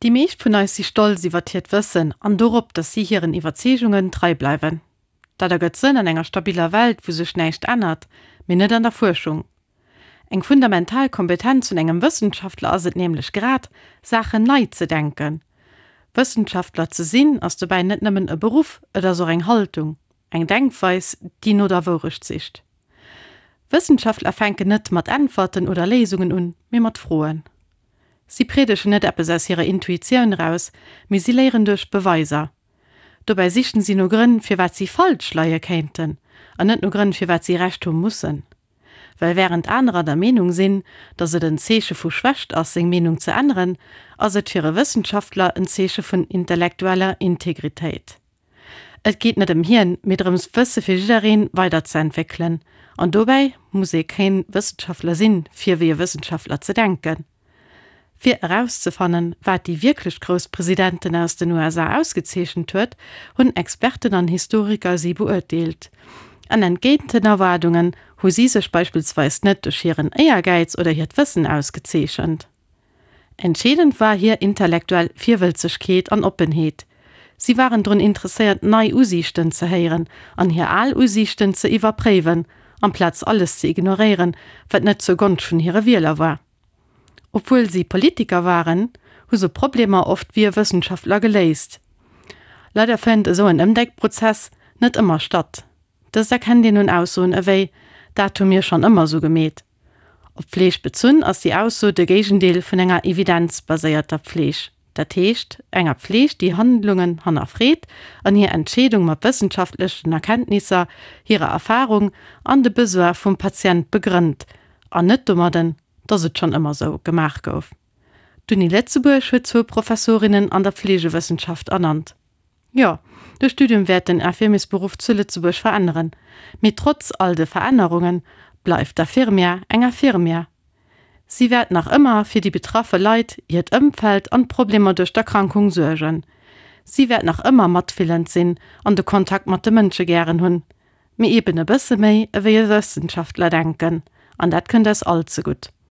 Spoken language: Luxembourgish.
Déi meescht vun eis si stolz iwwert hiert Wëssen an dorop, datt si hiren Iwwerzeegungen trei bleiwen. Dat ergëtt Sënn an enger stabiller Welt, wou sech näischt ännert, mee net an der Fuerschung. Eng fundamental Kompetenz vun engem Wëssenschaftler ass et nämlech grad, Saachen nei ze denken. Wëssenschaftler ze sinn, ass dobäi net nëmmen e Beruff, et ass och eng Haltung, eng Denkweis, déi no der Wourecht sicht. Wëssenschaftler fänken net mat Äntwerten oder Léisungen un, mee mat Froen. Si priedegen net eppes aus hirer Intuitioun eraus, mee si léieren duerch Beweiser. Dobäi sichen si no Grënn, firwat si falsch leie kéinten, an net no Grënn, firwat si Recht hu mussen. Well wärend anerer der Meenung sinn, datt et en Zeeche vu Schwächt ass, seng Meenung ze änneren, ass et fir e Wëssenschaftler en Zeeche vun intellektueller Integritéit. Et geet net ëm hien, mee drëms d'Wësse fir jiddereen weider ze entwéckelen. An dobäi muss ee keen Wëssenschaftler sinn, fir wéi e Wëssenschaftler ze denken. Fir erauszefannen, wat déi wierklech grouss Presidenten aus den USA ausgezeechent huet, hunn Experten an Historiker si beurteelt. An entgéint den Erwaardungen hu si sech beispillsweis net duerch hiren Éiergäiz oder hiert Wëssen ausgezeechent. Entscheedend war hir intellektuell Virwëlzegkeet an Oppenheet. Si waren drun interesséiert nei Usiichten ze héieren an hir al Usiichten ze iwwerpréiwen, amplaz alles ze ignoréieren, wat net zur Gonscht vun hire Wieler war. Obwuel si Politiker waren, hu se Problemer oft wéi e Wëssenschaftler geléist. Leider fënnt esou en Ëmdenkprozess net ëmmer statt. Dëst erkennt een un Aussoen ewéi, Dat hu mir schonn ëmmer esou gemeet. Op d'Fleeg bezunn ass déi Ausso de Géigendeel vun enger evidenzbaséierter Pfleeg, dat heescht enger Pfleeg, déi Handlungen hannerfreet an hir Entscheedung mat wëssenschaftlechen Erkenntnisser, hirer Erfarung an de Besoin vum Patient begrënnt, an net domadden, dass et schonn ëmmer sou gemaach gouf. D'Uni Lëtzebuerg huet zwou Professorinnen an der Pfleegewëssenschaft ernannt. Jo, de Studium wäert den Infirmiersberuff zu Lëtzebuerg veränneren. Mee trotz all de Verännerunge bleift d'Infirmière eng Infirmière. Si wäert nach ëmmer fir déi betraffe Leit, hiert Ëmfeld an d'Problemer duerch d'Erkrankung suergen. Si wäert nach ëmmer matfillend sinn an de Kontakt mat de Mënsche gären hunn. Mee eben e bësse méi ewéi e Wëssenschaftler denken. An dat kënnt eis all zegutt.